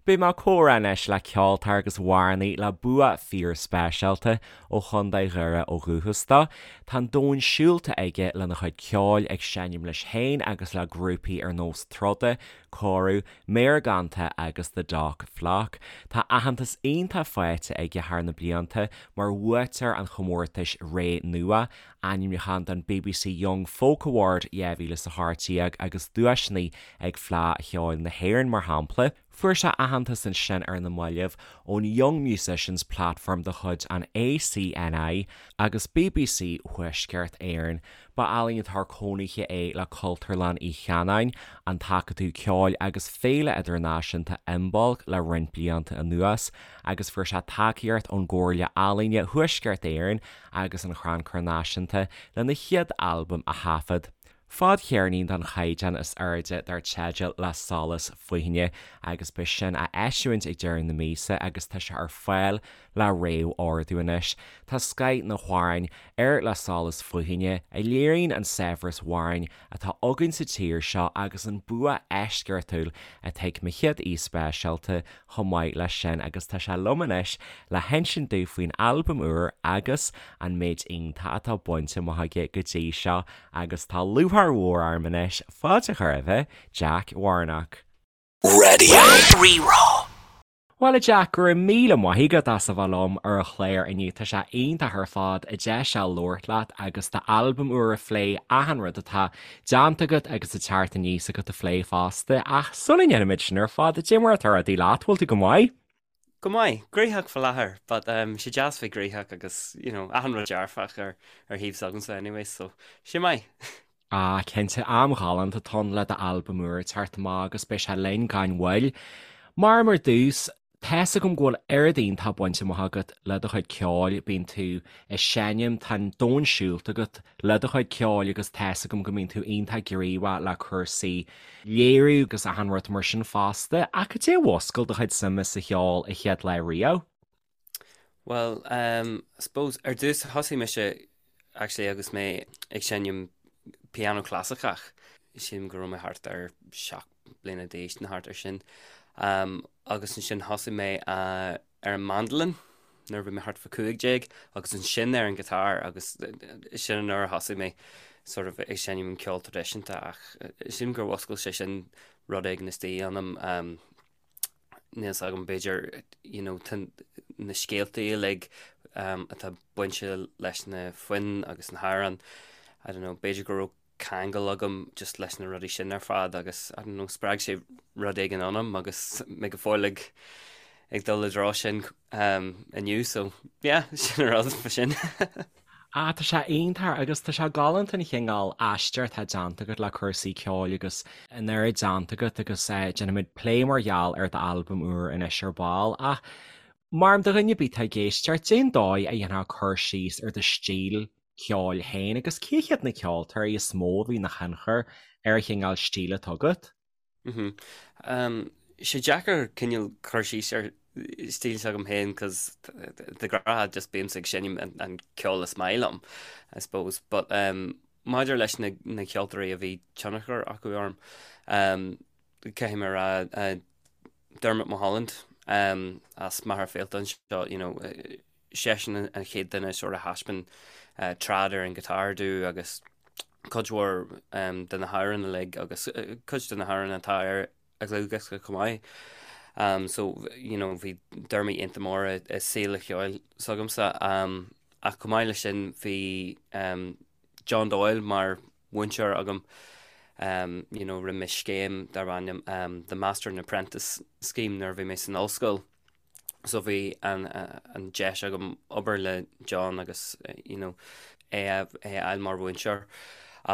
Beidh mé ag comhrá anois le ceoltóir agus amhránaí le bua fíor-speisialta ó Chontae Dhoire ó dhúchas dó. Tá an domhan siúlta aige lena chuid ceoil, ag seinm leis féin agus le grúpaí ar nós Troda, Cóiriú, Méargánta agus The Dock Flock. Tá aitheantas iontach faighte aige thar na blianta mar bhuaiteoir an chomórtais Ré Nua, ainmniúchán don bbc Young Folk Award 2018 agus duaiseanna ag Fleadh Cheoil na hÉireann, mar shampla. Fuair sé aitheantas ansin ar na mallaibh ón Young Musicians Platform de chuid an ACNI agus bbc Thuaisceart Éireann. Ba ealaíontóir cónaithe é le Cultúrlann Uí Chanáin, an tAcadamh Ceoil agus Féile Idirnáisiúnta Imbolc le roinnt blianta anuas agus fuair sé tacaíocht ón gComhairle Ealaíne Thuaisceart Éireann agus an Chrannchur Náisiúnta lena chéad albam a thaifead. Fadcheirnín den chaighdeán is airde dar teideal Le Solas Faoithine agus beidh sin á eisiúint ag deireadh na míosa agus tá sé ar fáil le réamh-ordú anois. Tá scoith na n-amhrán ar Le Solas Faoithine a léiríonn an saibhreas amhrán atá againn sa tír seo agus an bua eisceachtúil atá ag mo chéad aoi speisialta chomh maith leis sin agus tá sé liom anois le hinsint domh faoin albam úr agus an méid iontach atá bainte amach aige go dtí seo agus tá lúcháir mhór orm anois fáilte a chur roimhe, Jack Warnock. Radio Rí-Rá. Bhuel a Jack, go raibh míle maith agat as a bheith liom ar an chlár inniu, tá sé iontach ar fad an deis seo labhairt leat agus d'albam úr a phlé, achan rud atá déanta agat agus ag teacht aníos agat a phlé fosta, ach sula ndéanaimid sin ar fad, cad é mar atá rudaí leat, bhfuil tú go maith? Go maith, gnoitheach faoi láthair, but um, sé deas bheith gnoitheach agus, you know, achan rud dearfach ar, ar thaobh s'agamsa anyway, so sé maith. Ah, cinnte, am ghalánta atá ann le d'albam úr ag teacht amach agus beidh sé linn gan mhoill. Mar ar dtús, Tá's agam go bhfuil oiread iontach bainte amach agat le do chuid ceoil, bíonn tú ag seinm, tá an domhan siúlta agat le do chuid ceoil agus tá's agam go mbíonn tú iontach gníomhach le cúrsaí léiriú agus achan rud mar sin fosta, ach cad é a mhúscail do chuid suime sa cheol an chéad lá riamh? Bhuel, um, I suppose ar dtús thosaigh mise actually agus mé ag seinm piano clasaiceach, sílim go raibh mé thart ar 7 bliana d'aois nó thart ar sin. Agus ansin thosaigh mé ar an mandolin nuair a bhí mé thart fá 15 agus ansin ar an guitar agus sin an uair a thosaigh mé sort of ag seinm an ceol traidisiúnta ach sílim gur mhúscail sé sin rud éigin istigh ionam. Níl a fhios agam b'fhéidir you know tá na scéalta uilig atá bainte leis na foinn agus na hamhráin I don't know b'fhéidir go raibh ceangal agam just leis na rudaí sin ar fad agus I don't know spreag sé rud éigin ionam agus mé go fóill ag ag dul i dtreo sin um, inniu so yeah sin an rud fa sin. Ah, tá sé iontach agus tá sé galánta an chineál aistear atá déanta agat le cúrsaí ceoil agus an oiread déanta agat agus eh, déanfaimid plé mar gheall ar d'albam úr anois ar ball ach mar do dhuine ar bith atá ag éisteacht, cén dóigh a dhéanfá cur síos ar do stíl ceoil féin agus cé hiad na ceoltóirí is mó a bhí ina thionchar ar an chineál stíl atá agat? Sé deacair cineál cur síos ar stíl s'agam féin cos de ghnáth just bímse ag seinm an ceol is maith liom, I suppose. But um, maidir leis na, na ceoltóirí a bhí tionchar acu orm, um, caithfidh mé a rá uh, Dermot Mulholland um, as Machaire Fíolta anseo, you know, seisean an chéad duine sort of thaispeáin trad ar an guitar domh agus cuid mhór de na hamhráin uilig agus cuid de na hamhráin atá ar a dhlúthdhiosca chomh maith. So, you know, bhí Dermot iontach mór i saol an cheoil s'agamsa. Ach chomh maith leis sin bhí John Doyle mar mhúinteoir agam. You know, rinne mé scéim darb ainm The Master and Apprentice Scheme nuair a bhí mé san ollscoil. So bhí an an deis agam obair le John agus you know é a é a fháil mar mhúinteoir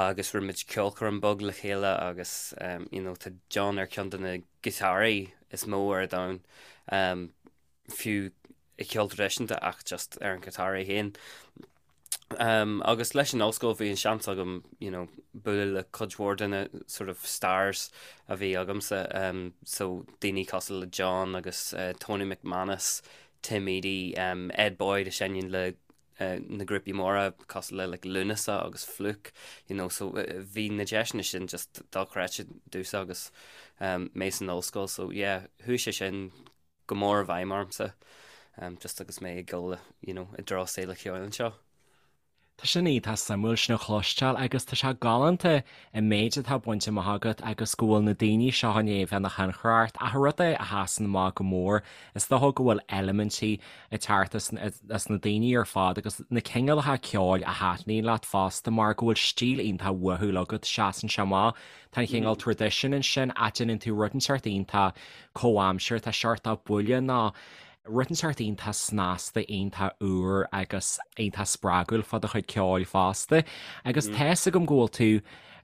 agus rinne muid ceolchoirm beag le chéile agus um, you know tá John ar ceann de na giotáraí is mó ar domhan um, fiú i ceol traidisiúnta ach just ar an guitar é féin. Um, agus leis an ollscoil bhí an seans agam you know, bualadh le cuid mhór de na sort of stars a bhí agamsa, um, so daoine cosúil le John agus uh, Tony McManus, Tim Edey, um, Ed Boyd a seinneann le na grúpaí móra cosúil le like Lúnasa agus Flook, you know, so bhí na deiseanna sin just dochreidte domhsa agus mé san ollscoil, so yeah, chuaigh sé sin go mór i bhfeidhm ormsa just agus mé ag dul, you know, i dtreo saol an cheoil anseo. Tá sin iontach suimiúil sin a chloisteáil agus tá sé galánta an méid atá bainte amach agat agus go bhfuil na daoine seo i ndiaidh a bheith ina thionchar ort ach an rud é a sheasann amach go mór is dócha go bhfuil eilimintí ag teacht as na daoine ar fad agus na cineálacha ceoil a thaitníonn leat fosta mar go bhfuil stíl iontach uathúil agat, seasann sé amach. Tá an cineál traidisiún ansin ach déanann tú rud inteacht iontach comhaimseartha, tá seort buille nó Rud inteacht iontach snasta, iontach úr agus iontach spreagúil fá do chuid ceoil fosta. Agus tá 'fhios agam go bhfuil tú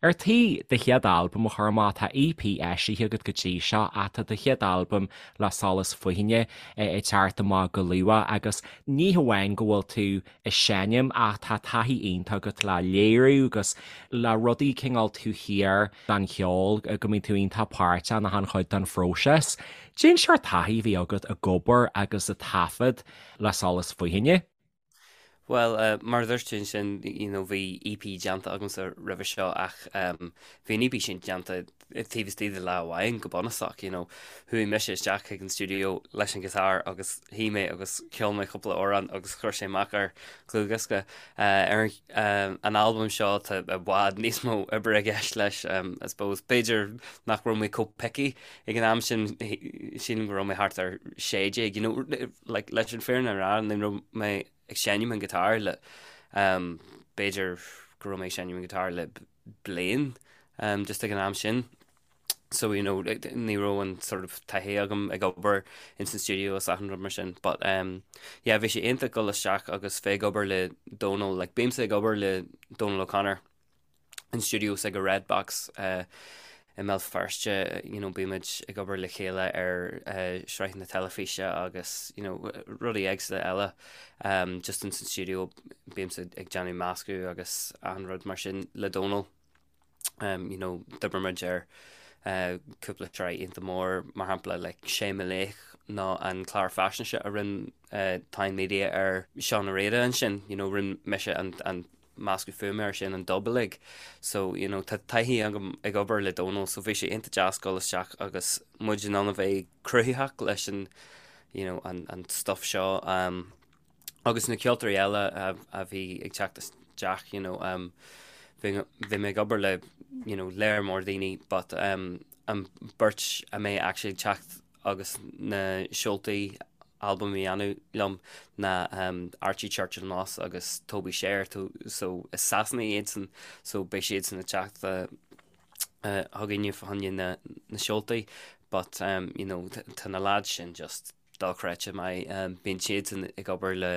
ar tí do chéad albam a chur amach, tá EP eisithe agat go dtí seo ach tá do chéad albam Le Solas Fothaine ag teacht amach go luath agus ní hamháin go bhfuil tú ag seinm ach tá taithí iontach agat le léiriú agus le rudaí cineál taobh thiar den cheol, go mbíonn tú iontach páirteach in achan chuid den phróiseas. Cén seort taithí a bhí agat ag obair agus ag taifead le Solas Fothaine? Bhuel, mar a dúirt tú ansin, you know, bhí EP déanta agamsa roimhe seo ach bhí an EP sin déanta taobh istigh de lá amháin go bunúsach, you know. Chuaigh mise isteach chuig an stiúideo leis an ghiotár agus shuigh mé agus cheol mé cúpla amhrán agus chuir sé amach ar dhlúthdhiosca. Ar an albam seo tá i bhfad níos mó oibre i gceist leis, I suppose. B'fhéidir nach raibh mé chomh picky ag an am sin, sílim go raibh mé thart ar 16, you know, like, leis an fírinne a rá, ní raibh mé ag seinm an guitar le, b'fhéidir go raibh mé ag seinm an guitar le bliain, just ag an am sin. So, you know, ní raibh an sort of taithí agam ag obair in san studio is achan rud mar sin. But, um, yeah, bhí sé iontach dul isteach agus bheith ag obair le Dónal, like, bímse ag obair le Dónal O'Connor in studio s'aige Red Box uh, i mBéal Feirste, you know, bímid ag obair le chéile ar uh, sraitheanna teilifíse agus, you know, rudaí éagsúla eile. Um, just in san studio bímse ag déanamh meascadh agus achan rud mar sin le Dónal. Um, you know, d'oibir muid ar uh, cúpla sraith iontach mór, mar shampla like, Sé Mo Laoch nó an clár faisnéise a rinne uh, Táin Media ar Seán Ó Riada ansin, you know, rinne mise an, an meascadh fuaime air sin, an dub uilig. So, you know, tá taithí agam ag obair le Dónal, so bhí sé iontach deas dul isteach agus muid in ann a bheith cruthaitheach leis an, you know, an, an stuff seo. Um, Agus na ceoltóirí eile a bhí ag teacht isteach, you know, um, bhí, bhí mé ag obair le, you know, léar mór daoine, but um, an beirt a mbeidh actually ag teacht agus na seoltaí albam a dhéanamh liom ná um, Archie Churchill Moss agus Toby Shaer, so is Sasanaigh iadsan, so beidh siadsan ag teacht uh, uh, chugainne fá choinne na, na seoltaí, but um, you know, tá na lads sin just dochreidte maith. Bíonn siadsan ag obair le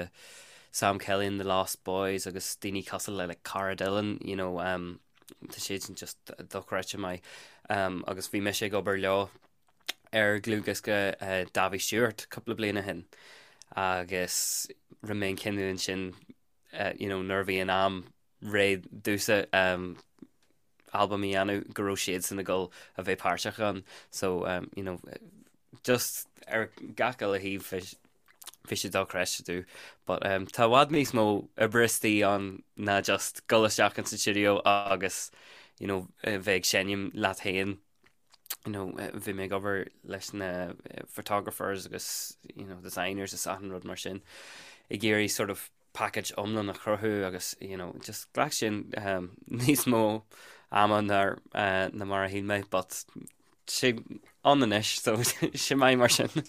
Sam Kelly and the Lost Boys agus daoine cosúil le like Cara Dillon, you know, um, tá siadsan just dochreidte maith. Um, agus bhí mise ag obair leo ar dhlúthdhiosca uh, Davy Stewart cúpla bliain ó shin agus rinne mé an cinneadh ansin uh, you know, nuair a bhí an am réidh domhsa um, albam a dhéanamh go raibh siadsan ag dul a bheith páirteach ann so um, you know, just ar gach uile thaobh bhí sé dochreidte domh but um, tá i bhfad níos mó oibre istigh ann ná just dul isteach in sa studio agus you know, bheith ag seinm leat féin you know, bhí mé ag obair leis na photographers agus you know, designers is achan rud mar sin ag iarraidh sort of package iomlán a chruthú agus you know, just ghlac sin um, níos mó ama ná uh, ná mar a shíl mé, but sé ann anois, so sé maith mar sin.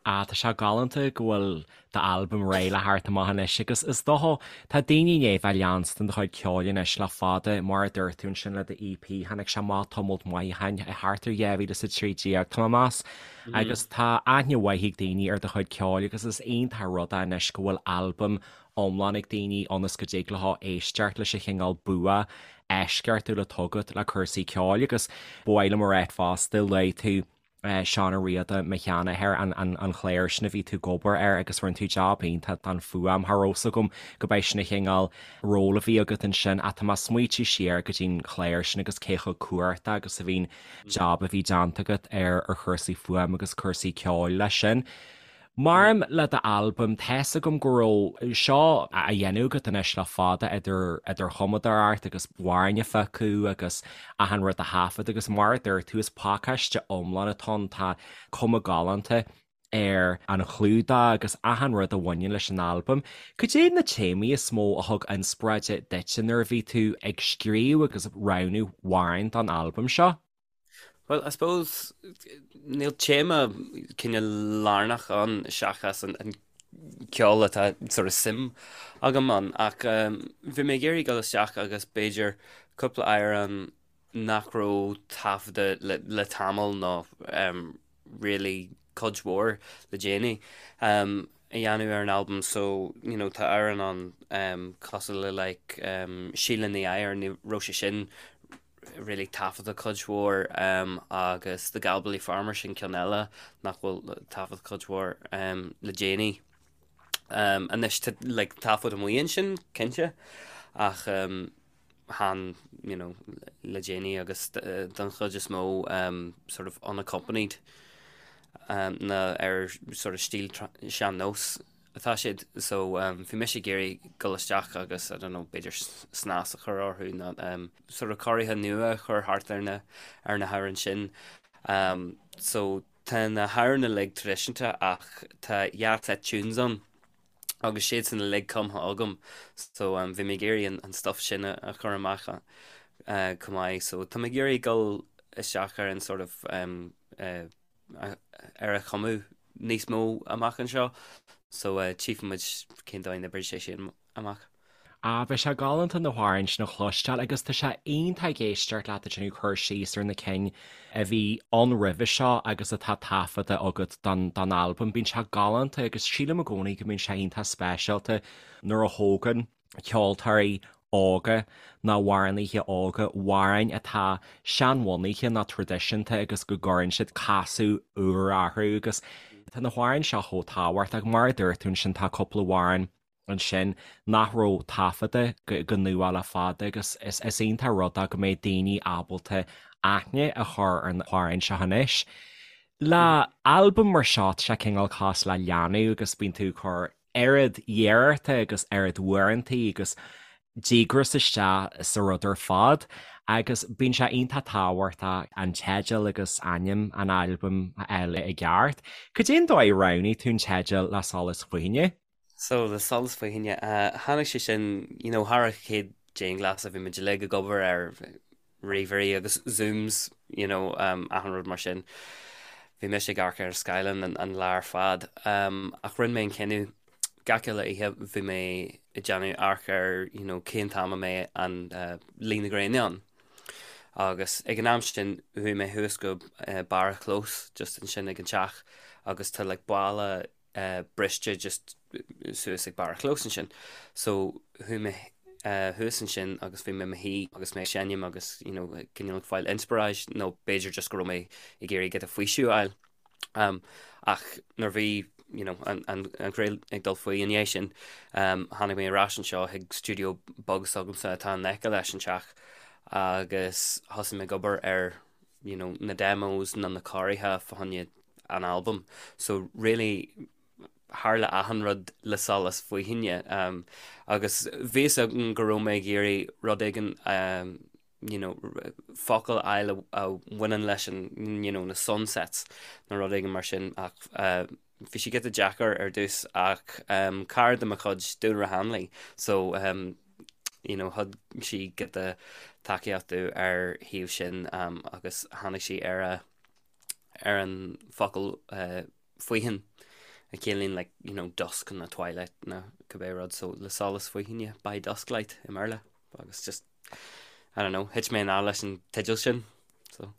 Ah, tá sé galánta go bhfuil d'albam réidh le theacht amach anois agus is dócha, tá daoine i ndiaidh bheith ag leanstan do chuid ceoil anois le fada, mar a dúirt tú ansin le do EP, tháinig sé amach tamalt maith ó shin, thart ar 2013, tá mé ag meas, Agus tá aithne mhaith ag daoine ar do chuid ceoil agus is iontach an rud é anois go bhfuil albam iomlán ag daoine ionas go dtig leo éisteacht leis an chineál bua eisceachtúil atá agat le cúrsaí ceoil agus ba mhaith liom a rá fosta, luaigh tú Seán Ó Riada, mo sheanathair, an clár sin a bhí tú ag obair air agus rinne tú jab iontach don fuaim, cha raibh 's agam go b'é sin an chineál ról a bhí agat ansin ach tá mé ag smaoitiú siar go dtí'n chlár sin agus cé chomh cumhachtach agus a bhí'n jab a bhí déanta agat ar ar chúrsaí fuaim agus cúrsaí ceoil leis sin. Maidir le d'albam, tá's agam go raibh seo á dhéanamh agat anois le fada idir idir chumadóireacht agus amhráin a phiocadh agus achan rud a thaifead agus mar a dúirt tú is pacáiste iomlán atá ann, tá cuma galánta ar an chlúdach agus achan rud a bhaineann leis an albam. Cad é na téamaí is mó a thug inspioráid duitse nuair a bhí tú ag scríobh agus roghnú amhráin don albam seo? Bhuel, I suppose, níl téama cineál lárnach ann seachas an ceol atá sort of suim agam ann ach bhí mé ag iarraidh dul isteach agus b'fhéidir cúpla amhrán nach raibh taifeadta le tamall nó really cuid mhór le déanaí a dhéanamh ar an albam so you know tá amhrán ann cosúil le like Síle Ní Eadhair, ní raibh sé sin really taifeadta cuid mhór agus The Galbally Farmer sin ceann eile nach bhfuil taifeadta cuid mhór le déanaí. Anois tá like taifead amuigh ansin cinnte ach chan you know le déanaí agus don chuid is mó sort of unaccompanied nó ar sort of stíl sean-nós. atá siad so bhí mise ag iarraidh dul isteach agus I don't know b'fhéidir snas a chur orthu nó sort of cóirithe nua a chur thart ar na ar na hamhráin sin. So tá na hamhráin uilig traidisiúnta ach tá dhá set tunes ann agus siad san uilig cumtha agam so bhí mé ag iarraidh an an stuff sin a chur amach chomh maith so tá mé ag iarraidh dul isteach ar an sort of ar a chumadh níos mó amach anseo so tchífidh muid cén dóigh a n-oibreoidh sé sin amach. Ah, beidh sé galánta na hamhráin sin a chloisteáil agus tá sé iontach ag éisteacht leat ag déanamh cur síos ar na cinn a bhí ann roimhe seo agus atá taifeadta agat don don albam. Bíonn sé galánta agus sílim i gcónaí go mbíonn sé iontach speisialta nuair a thógann ceoltóirí óga nó amhránaithe óga amhráin atá seanbhunaithe nó traidisiúnta agus go gcuireann siad casadh úr orthu agus tá na hamhráin seo chomh tábhachtach. Mar a dúirt tú ansin tá cúpla amhrán ansin nach raibh taifeadta go nua le fada agus is iontach rud é go mbeidh daoine ábalta aithne a chur ar na hamhráin seo anois. Le albam mar seo tá sé cineál cosúil le leanbh agus bíonn tú ag cur oiread iarrachta agus oiread uaireantaí agus díograis isteach sa rud ar fad agus bíonn sé iontach tábhachtach an teideal agus ainm an albaim a fháil i gceart. Cad é an dóigh a roghnaigh tú an teideal Le Solas Faoithine? So, Le Solas Faoithine, tháinig sé sin, you know, thar an chéad dianghlasáil bhí muid uilig ag obair ar ríomhairí agus Zooms, you know, achan rud mar sin. Bhí mise ag amharc ar an scáileán an lá ar fad. Ach rinne mé an cinneadh gach uile oíche bhí mé ag déanamh amharc ar, you know, cén t-am a mbeidh an luí na gréine ann. Agus ag an am sin chuaigh mé thuas go barr an chlós just ansin ag an teach agus tá like balla briste just suas ag barr an chlós ansin. So chuaigh mé thuas ansin agus bhí mé i mo shuí agus mé ag seinm agus you know cineál ag fáil inspioráid nó b'fhéidir just go raibh mé ag iarraidh giota faoiseamh a fháil. Um, ach nuair bhí you know, an, an, an ghrian ag dul faoi i ndiaidh sin, um, tháinig mé ar ais anseo chuig stiúideo beag s'agamsa atá in aice leis an teach agus thosaigh mé ag obair ar you know, na demos nó na cóirithe fá choinne an albam. So really tharla achan rud le solas faoithine um, agus bhí fhios agam go raibh mé ag iarraidh rud éigin um, you know, focal a fháil a, a bhaineann leis an you know, na sunsets nó rud éigin mar sin ach uh, bhí sé giota deacair ar dtús ach um, cara de mo chuid Dúlra Hanley so um, you know, thug sí giota tacaíocht domh ar thaobh sin um, agus tháinig sí ar a ar an focal faoithin a chiallaíonn like, you know, dusk nó twilight nó cibé rud, so le solas faoithine, by dusklight i mBéarla agus just, I don't know, thit mé in love leis an teideal sin, so.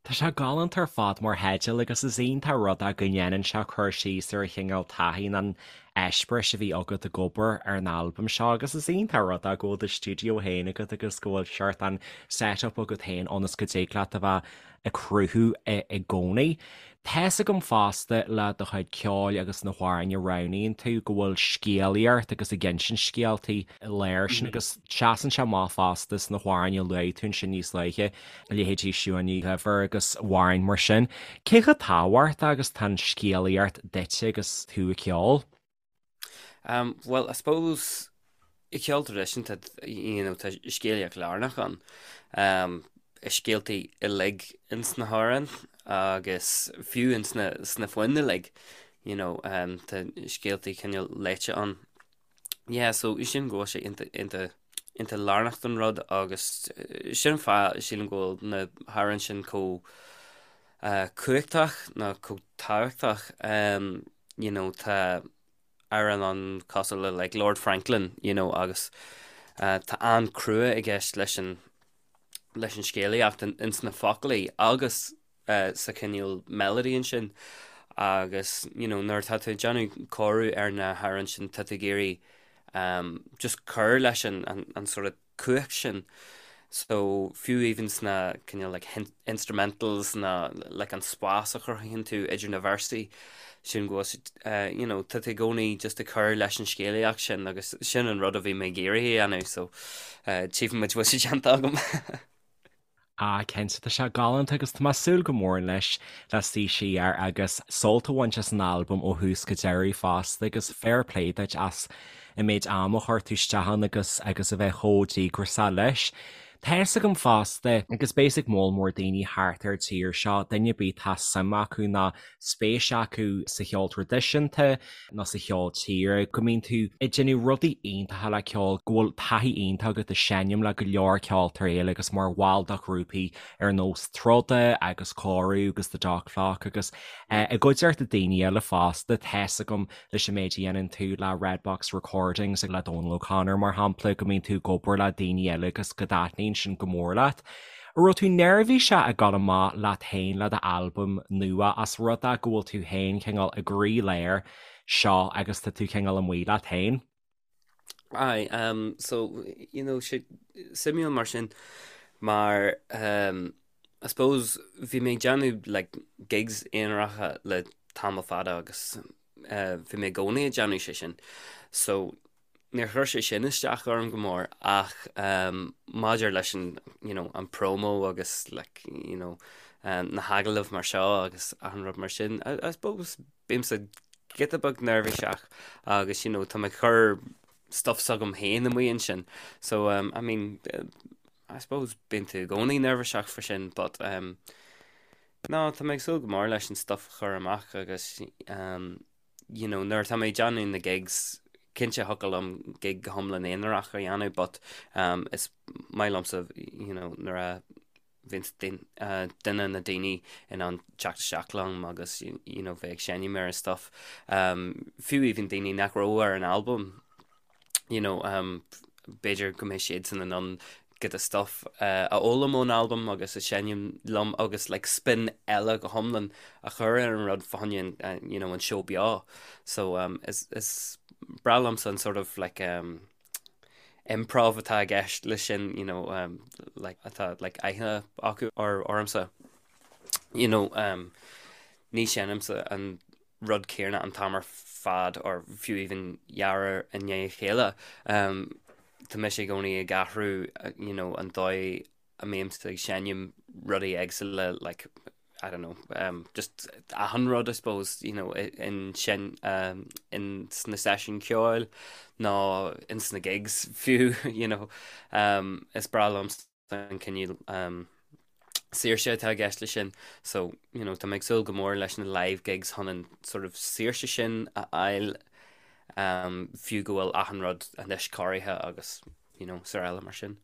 Tá sé galánta ar fad mar theideal agus is iontach rud é go ndéanann sé cur síos ar an chineál taithí an. eispéiris a bhí agat ag obair ar an albam seo agus is iontach rud é go bhfuil do stiúideo féin agat agus go bhfuil seort an set-up agat féin ionas go dtig leat a bheith ag cruthú i gcónaí. Tá's agam fosta le do chuid ceoil agus na hamhráin a roghnaíonn tú go bhfuil scéalaíocht agus ag insint scéaltaí leis sin agus seasann sé amach fosta sna hamhráin a luaigh tú ansin níos luaithe, leithéidí Siún Ní Dhuibhir agus amhráin mar sin. Cé chomh tábhachtach agus tá an scéalaíocht duitse agus tú ag ceol? Um, well, I suppose i gceol traidisiúnta you know, tá scéalaíocht lárnach ann. Um, i scéaltaí uilig ins na hamhráin agus fiú ins na, sna foinn uilig, you know, um, tá scéaltaí cineál léite ann. Yeah, so sin go bhfuil sé iontach, iontach, iontach lárnach don rud agus eh, sin an fáth sílim go bhfuil na hamhráin sin chomh uh, cumhachtach nó chomh tábhachtach. Um, you know, tá amhrán ann cosúil le like Lord Franklin, you know, agus uh, tá an-crua i gceist leis an leis an scéalaíocht in, ins na foclaí agus uh, sa chineál melody ansin agus you know, nuair atá tú ag déanamh cóiriú ar na hamhráin sin tá tú ag iarraidh um, just cur leis an, an, an sort of cumhacht sin. So fiú even sna cineál like instrumentals na like an spás a chruthaíonn tú idir na véarsaí sin go bhfuil eh, you know, tá tú i gcónaí just ag cur leis an scéalaíocht sin agus sin an rud a bhí mé ag iarraidh a dhéanamh so eh, tchífidh muid bhfuil sé déanta agam. Ah, cinnte, tá sé galánta agus tá mé ag súil go mór anois le suí siar agus sult a bhaint as an albam ó thús go deireadh fosta agus fair play duit as an méid ama a chuir tú isteach ann agus agus a bheith chomh díograiseach leis. Tá fhios agam fosta, agus beidh fhios ag moll mór daoine thart ar an tír seo, duine ar bith atá suim acu nó spéis acu sa cheol traidisiúnta nó sa cheol tíre, go mbíonn tú ag déanamh rudaí iontacha le ceol, go bhfuil taithí iontach agat ag seinm le go leor ceoltóirí eile agus mar bhall de ghrúpaí ar nós Troda agus Cóiriú agus The Dot Clock agus i gcuideachta daoine eile fosta. Tá fhios agam leis an méid a dhéanann tú le Red Box Recordings le Dónal O'Connor mar shampla, go mbíonn tú ag obair le daoine eile agus go dtaitníonn sin go mór leat. An raibh tú neirbhíseach ag dul amach leat féin le d'albam nua as rud é go bhfuil tú féin cineál i gcroílár seo agus tá tú cineál amuigh leat féin? Aye, um, so, you know, sé suimiúil mar sin mar um, I suppose bhí mé ag déanamh like, gigs aonaracha le tamall fada agus uh, bhí mé i gcónaí ag déanamh sé sin. So, Níor chuir sé sin isteach orm go mór ach maidir leis an, you know, an promo agus like, you know, na hagallaimh mar seo agus achan rud mar sin, I, I suppose bímse giota beag neirbhíseach agus, you know, tá mé ag cur stuff s'agam féin amuigh ansin. So, um, I mean, I suppose bíonn tú i gcónaí neirbhíseach faoi sin, but um, no, tá mé ag súil go mór leis an stuff a chur amach agus um, you know, nuair atá mé ag déanamh na gigs, cinnte thiocfadh liom gig go hiomlán aonarach a dhéanamh but um, is maith liomsa, you know, nuair a bhíonn uh, duine nó daoine in ann teacht isteach liom agus you know, bheith ag seinm ar an stuff. Um, fiú even daoine nach raibh ar an albam, you know, um, b'fhéidir go mbeidh siadsan in ann giota stuff uh, a fhoghlaim ón albam agus a seinm liom agus like, spin eile go hiomlán a chur ar an rud fá choinne uh, you know, an seó beo. So um, is, is breá liomsa an sort of like, um, improv atá i gceist leis sin, you know, um, like, atá like, aithne acu ar ormsa. You know, um, ní sheinnimse an rud céanna an t-am ar fad or fiú even dhá uair i ndiaidh a chéile. Um, tá mise i gcónaí ag athrú you know, an dóigh a mbímse ag seinm rudaí éagsúla like, I don't know, um, just achan rud I suppose, you know, in sin um, in sna seisiúin ceoil nó in sna gigs fiú, you know, um, is breá liom an cineál saoirse atá i gceist leis sin. So, you know, tá mé ag súil go mór leis na live gigs chun an sort of saoirse sin a fháil um, fiú go bhfuil achan rud anois cóirithe agus, you know, is araile mar sin.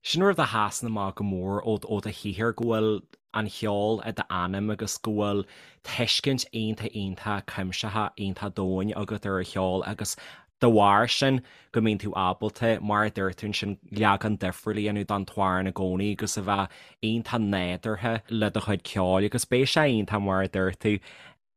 Sin rud a sheasann amach go mór ó do shaothar, go bhfuil an cheol i d'anam agus go bhfuil tuiscint iontach iontach cuimsitheach iontach domhain agat ar an cheol agus De bharr sin, go mbíonn tú ábalta, mar a dúirt tú ansin, leagan difriúil a dhéanamh den t-amhrán i gcónaí agus a bheith iontach nádúrtha le do chuid ceoil agus beidh sé iontach, mar a dúirt tú.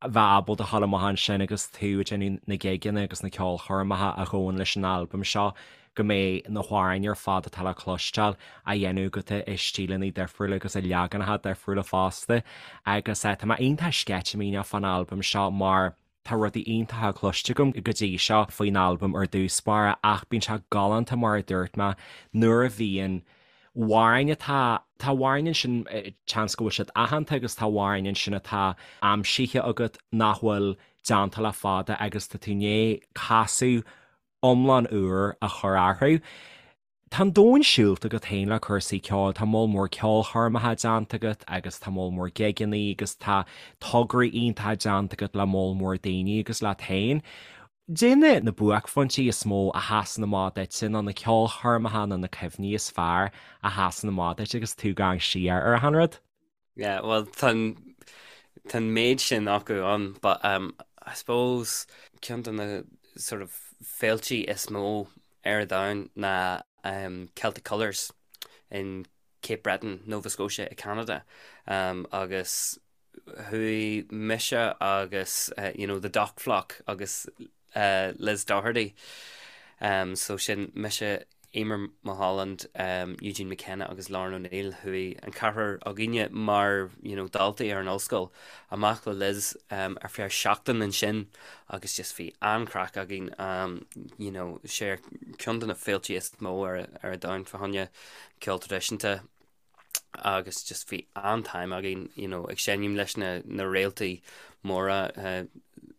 bheith ábalta dhul amach ansin agus tú ag déanamh na gigeanna agus na ceolchoirmeacha a ghabhann leis an albam seo, go mbeidh na hamhráin ar fad atá le cloisteáil á dhéanamh agat i stíleanna difriúla agus i leaganacha difriúla fosta. Agus tá mé iontach sceitimíneach fán albam seo mar tá rudaí iontacha cloiste agam go dtí seo faoin albam ar dtús báire ach bíonn sé galánta mar a dúirt mé nuair a bhíonn amhráin atá, tá amhráin ansin seans go bhfuil siad aitheanta agus tá amhráin ansin atá aimsithe agat nach bhfuil déanta le fada agus tá tú i ndiaidh casadh iomlán úr a chur orthu. Tá an domhan siúlta agat féin le cúrsaí ceoil, tá moll mór ceolchoirmeacha déanta agat agus tá moll mór gigeanna agus tá tograí iontacha déanta agat le moll mór daoine agus leat féin. Caidé na na buaicphointí is mó a sheasann amach duitse nó na ceolchoirmeacha nó na cuimhní is fearr a sheasann amach duit agus tú ag amharc siar ar achan rud? Yeah, well tá an tá an méid sin acu ann but um, I suppose ceann de na sort of féiltí is mó ar domhan ná um, Celtic Colours in Cape Breton, Nova Scotia i Canada um, agus chuaigh mise agus uh, you know, the Dock Flock agus uh, Liz Doherty um, so sin mise Emer Mulholland, um, Eugene McKenna agus Lauren O'Neill chuaigh an ceathrar againne mar you know, daltaí ar an ollscoil amach le Liz um, ar feadh seachtain ansin agus just bhí an-chraic againn um, you know, sé ceann de na féiltí is mó ar, ar an domhan fá choinne ceol traidisiúnta agus just bhí an-time againn you know, ag seinm leis na, na réaltaí móra uh,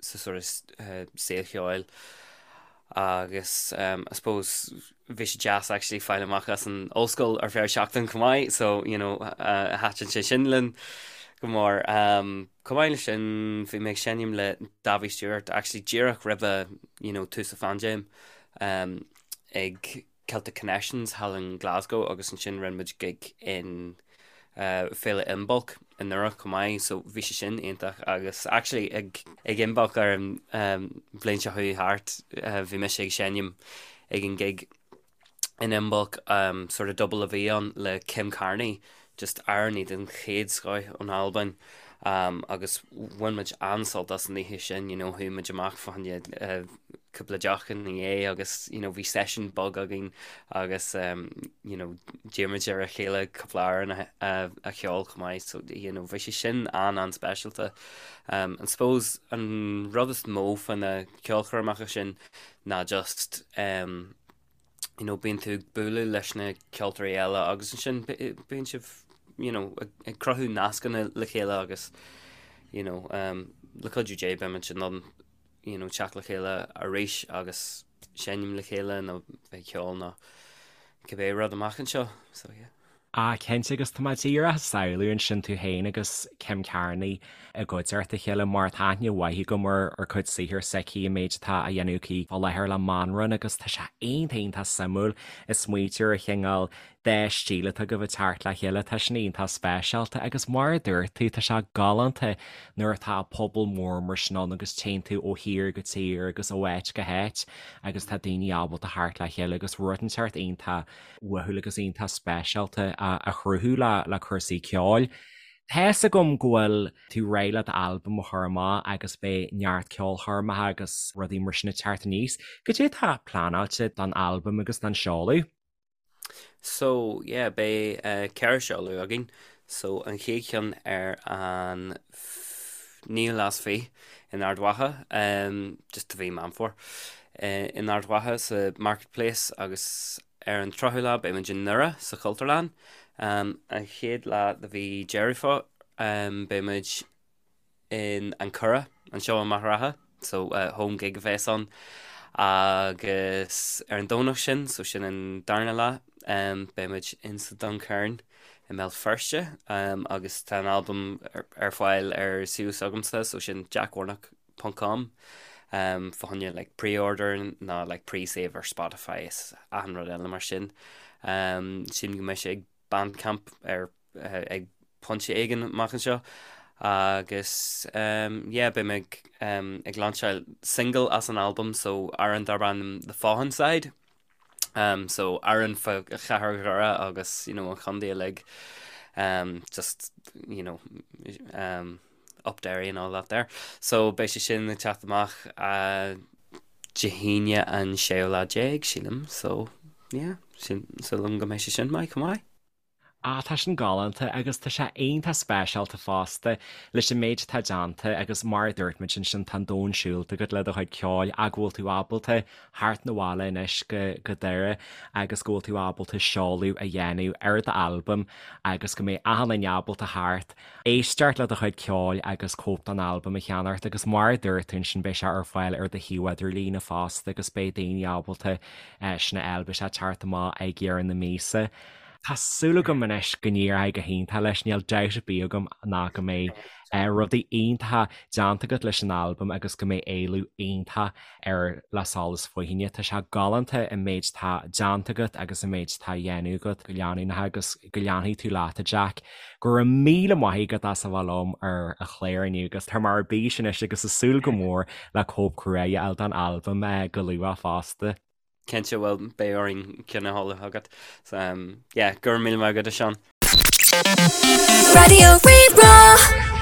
sa sort of, uh, saol cheoil agus um, I suppose bhí sé deas actually fáil amach as an ollscoil ar feadh seachtain chomh maith so you know, uh, thaitin sé sin linn go mór. Um, chomh maith leis sin bhí mé ag seinm le Davy Stewart actually díreach roimhe you know, tús an phaindéim um, ag Celtic Connections thall in Glasgow agus ansin rinne muid gig in Féile Imbolc i nDoire chomh maith so bhí sé sin iontach agus actually ag ag Imbolc ar an bhliain seo chuaigh thart bhí mise ag seinm ag an gig in Imbolc sort of double a bhí ann le Kim Carnie just amhránaí den chéad scoth ón Albain agus bhain muid an-sult as an oíche sin, you know, chuaigh muid amach fá choinne cúpla deoch ina dhiaidh agus you know, bhí seisiún beag againn agus um, you know, d'iarr muid ar a chéile cúpla amhrán a, a, a cheol chomh maith, so you know, bhí sé sin an-an-speisialta. Um, and suppose an rud is mó fá na ceolchoirmeacha sin ná just um, you know, bíonn tú ag bualadh leis na ceoltóirí eile agus ansin bíonn sibh you know, ag cruthú nascanna le chéile agus you know, um, le cuidiú Dé beimid in ann you know, teacht le chéile arís agus seinm le chéile nó bheith ag ceol nó cibé rud amach anseo. So, yeah. Ah, cinnte, agus tá mé díreach ag samhlú ansin tú féin agus Kim Carnie i gcuideachta a chéile mar tá aithne mhaith agam ar ar cuid saothair s'aici, an méid atá á dhéanamh aici fá láthair le Manran agus tá sé iontach iontach suimiúil ag smaoitiú ar an chineál dá stíl atá agaibh ag teacht le chéile, tá sin iontach speisialta agus mar a dúirt tú, tá sé galánta nuair atá pobal mór mar sin ann agus téann tú ó thír go tír agus ó áit go háit agus tá daoine ábalta theacht le chéile agus rud inteacht iontach uathúil agus iontach speisialta a chruthú le cúrsaí ceoil. Tá fhios agam go bhfuil tú réidh le d'albam a chur amach agus beidh neart ceolchoirmeacha agus rudaí mar sin ag teacht aníos. Cad é atá pleanáilte don albam agus don seoladh? So, yeah, beidh 4 seoladh againn. So, an chéad cheann ar an naoú lá is fiche in Ard Mhacha, just do mhí Meán Fómhair, in Ard Mhacha sa Market Place agus ar an 30ú lá beidh muid i nDoire sa Chultúrlann. An chéad lá de mhí Deireadh Fómhair beidh muid in An Currach anseo i Machaire Rátha, so home gig a bheas ann agus ar an Domhnach sin, so sin an darna lá, beidh muid in sa Duncairn i mBéal Feirste agus tá an albam ar fáil ar suíomh s'agamsa, so sin jackwarnock ponc com fá choinne like pre-order nó like pre-save ar Spotify is achan rud eile mar sin. Sílim go mbeidh sé ag Bandcamp ar ag pointe éigin amach anseo agus yeah beidh mé ag ag lainseáil single as an albam so amhrán darb ainm The Fawnside. Um, so amhrán fá chathair Dhoire agus you know, an chontae uilig um, just you know, um, Up Derry and all that there. So beidh sé sin ag teacht amach Dé hAoine an séú lá déag, sílim, so yeah, sin, súil agam go mbeidh sé sin maith chomh maith. Ah, tá sin galánta agus tá sé iontach speisialta fosta leis an méid atá déanta agus mar a dúirt muid ansin tá an domhan siúlta agat le do chuid ceoil ach go bhfuil tú ábalta theacht 'na bhaile anois go go Doire agus go bhfuil tú ábalta seoladh a dhéanamh ar d'albam agus go mbeidh achan duine ábalta theacht éisteacht le do chuid ceoil agus cóip den albam a cheannacht agus mar a dúirt tú ansin beidh sé ar fáil ar do shuíomh idirlíne fosta agus beidh daoine ábalta sin a fháil, beidh sé ag teacht amach ag deireadh na míosa. Tá súil agam anois go n-éireoidh go hiontach leis, níl dabht ar bith agam ná go mbeidh rudaí iontacha déanta agat leis an albam agus go mbeidh éileamh iontach air le solas fóithíne. Tá sé galánta an méid atá déanta agat agus an méid atá á dhéanamh agat go leanúnach agus go leanfaidh tú leat, a Jack. Go raibh míle maith agat as a bheith liom ar an chlár inniu agus tá mé ar bís anois agus ag súil go mór le cóip crua a fháil den albam go luath fosta. Cinnte, bhuel, beidh orainn ceann a sheoladh chugat. So, um, yeah, go raibh míle maith agat, a Seán. Raidió Rí-Rá.